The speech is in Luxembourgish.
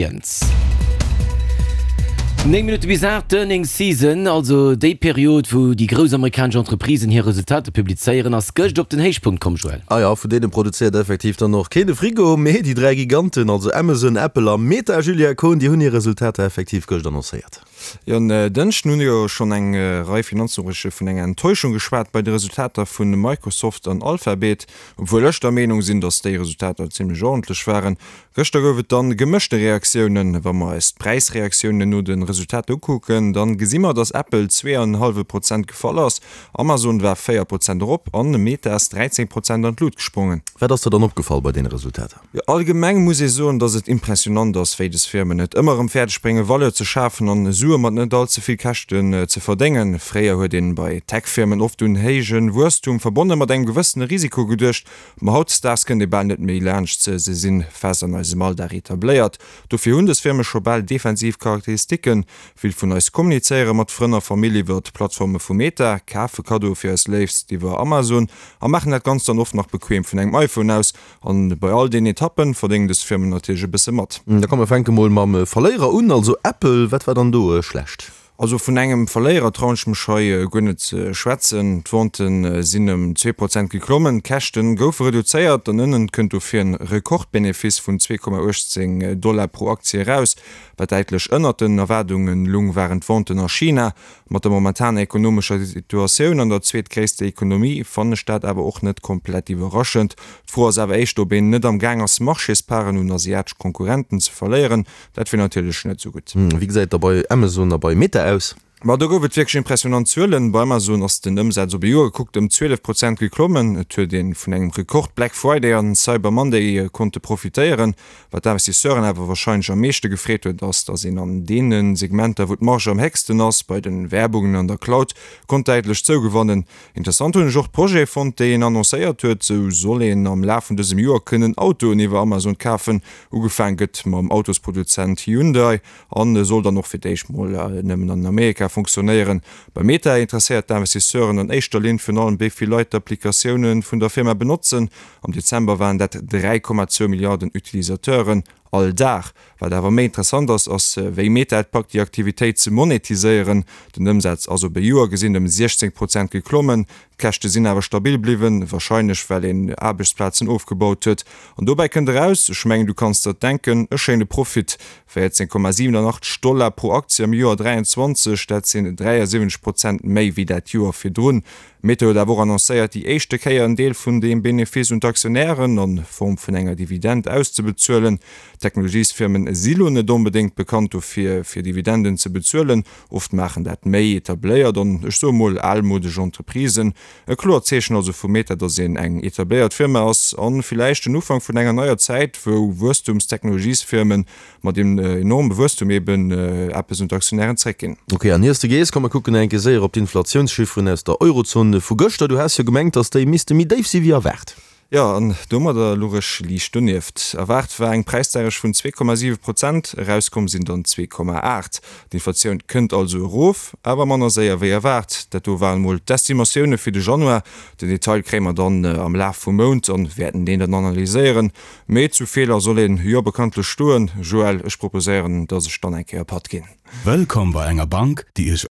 Moies. 9 Minutte bis 8, D'Earnings Season, also déi Period, wou déi grouss amerikanesch Entreprisen hir Resultater publizéieren, ass gëscht op den Héichpunkt komm, Joël. Ah jo, vun deene produzéiert effektiv dann och keen e Frigo, mee déi 3 Giganten, also Amazon, Apple a Meta, Julia Kohn, déi hunn hir Resultater effektiv gëscht annoncéiert. Jo, en Dënschden hunn jo schonn eng Rei Finanznoriichte vun enger Enttäuschung geschwat bei de Resultater vu Microsoft an Alphabet. Obwuel ech der Meenung sinn, datt déi Resultater zimmlech ordentlech waren, Gëschter gouf et dann gemëschte Reaktiounen. Wa mer eis d'Präisreaktiounen no de Resultater ukucken, dann gesi mer, dass Apple 2,5 Prozent gefall ass, Amazon war 4 Prozent erop an Meta ass 13 Prozent an d'Lut gesprongen. Wat ass der dann opgefall bei deene Resultater? Jo, allgemeng muss ee soen, dass et impressionant ass, wéi des Firmen et ëmmer erëm fäerdeg bréngen, Valeur ze schafen an Sue mat net all ze vill Käschten ze verdéngen. Fréier huet een bei Tech-Firmen oft un héije Wuesstum, verbonne mat engem gewëssene Risiko geduecht, Ma hautdesdaags kënnt ee bal net méi laanscht se, se sinn fest an eisem Alldag etabléiert. Dofir hunn dës Firme scho bal defensiv Charakteristiken. Vill vun eis kommunizéiere mat Frënn a Famill iwwer d'Plattforme vu Meta, kafe Kaddoe fir eis Léifst iwwer Amazon a maachen dat Ganzt dann oft nach bequem vun engem iPhone aus. An bei all deenen Etappen verdéngen dës Firmen natierlech e bësse mat. Da komm mer fänke mol mam Verléierer un, also Apple. Wat war dann do schlecht? Also vun engem Verléierer trauen ech mech hei guer net ze schwätzen. D'Venten sinn ëm 2 Prozent geklommen, d'Käschte goufe reduzéiert an ënnen kënnt dofir en Rekordbenefice vun 2,18 Dollar pro Aktie eraus. Wat däitlech ënnert den Erwaardunge lung, waren d'Venten a China. Mat der momentaner ekonomescher Situatioun an der zweetgréisster Ekonomie fannen ech dat awer och net komplett iwwerraschend. D'Fro ass awer éischter, ob een net am Gaang ass Marchésparten un asiatesch Konkurrenten ze verléieren. Dat wier natierlech net esou gutt. Wéi gesäit et da bei Amazon a bei Meta aus? Ma do gouf et wierklech impressionant Zuelen. Bei Amazon ass den Ëmsaz op e Joer gekuckt ëm 12 Prozent geklommen. Et huet ee vun engem Rekord Black Friday an Cyber Monday konnte profitéieren. Wat d'Investisseuren awer warscheinlech am meeschte gefreet huet, ass, datt een an deene Segmenter, wou d'Marge am héchsten ass, bei de Werbungen an der Cloud, konnt däitlech zougewannen. Interessant hunn ech och d'Projete fonnt, déi een annoncéiert huet. Sou soll een am Laf vun dësem Joer kënnen Autoen iwwer Amazon kafen. Ugefaang gëtt mam Autosproduzent Hyundai an soll dann och fir d'éischt mol nëmmen an Amerika funktionéieren. Bei Meta interesséiert d'Investisseuren an éischter Linn virun allem, wéi vill Leit d'Applikatioune vun der Firma benotzen. Am Dezember waren dat 3,2 Milliarden Utilisateuren all Dag. Wat awer méi interessant ass, ass wéi Meta et packt déi Aktivitéit ze monetiséieren. Den Ëmsaz ass op e Joer gesinn ëm 16 Prozent geklommen, d'Käschte sinn awer stabil bliwwen, warscheinlech well een Aarbechtsplazen ofgebaut huet. An dobäi kënnt eraus, ech mengen du kanns der et denken, e schéine Profit, 14,87 Dollar pro Aktie am Joer 23, dat sinn 73 Prozent méi wéi dat Joer virdrun. Meta huet awer och annoncéiert, déi éischte Kéier en Deel vun deem Benefice un d'Aktionären a Form vun enger Dividend auszebezuelen. Technologiesfirmen si lo net onbedéngt bekannt dofir, fir Dividenden ze bezuelen. Oft maachen dat méi etabléiert an, ech soe mol, almodesch Entreprisen. E kloert Zeechen also vu Meta, datt een eng etabléiert Firma ass a villäicht den Ufank vun enger neier Zäit, wou Wuesstumstechnologiesfirmen mat deem enorme Wuesstum eben eppes un d'Aktionären zréckginn. Ok, an iers de gees, komm mer kucken eng Kéier séier op d'Inflatiounschifferen aus der Eurozon vu gëschter. Du has jo gemengt, datt déi misste méi déif si wéi erwaart. Jo, an domadder luch ech liicht donieft. Erwaart war eng Präisdeierecht vun 2,7 Prozent, erauskomm sinn dann 2,8. D'Inflatioun kënnt also erof, awer manner séier wéi erwaart. Dat do waren emol d'Estimatioune fir de Januar. Den Detail kréie mer dann am Laf vum Mount an wäerten deen dann analyséieren. Mee zu Feeler soll een jo bekanntlech stoen. Joël, ech proposéieren, dass ech dann eng Kéier Patt ginn. Wëllkomm bei enger Bank, déi Iech.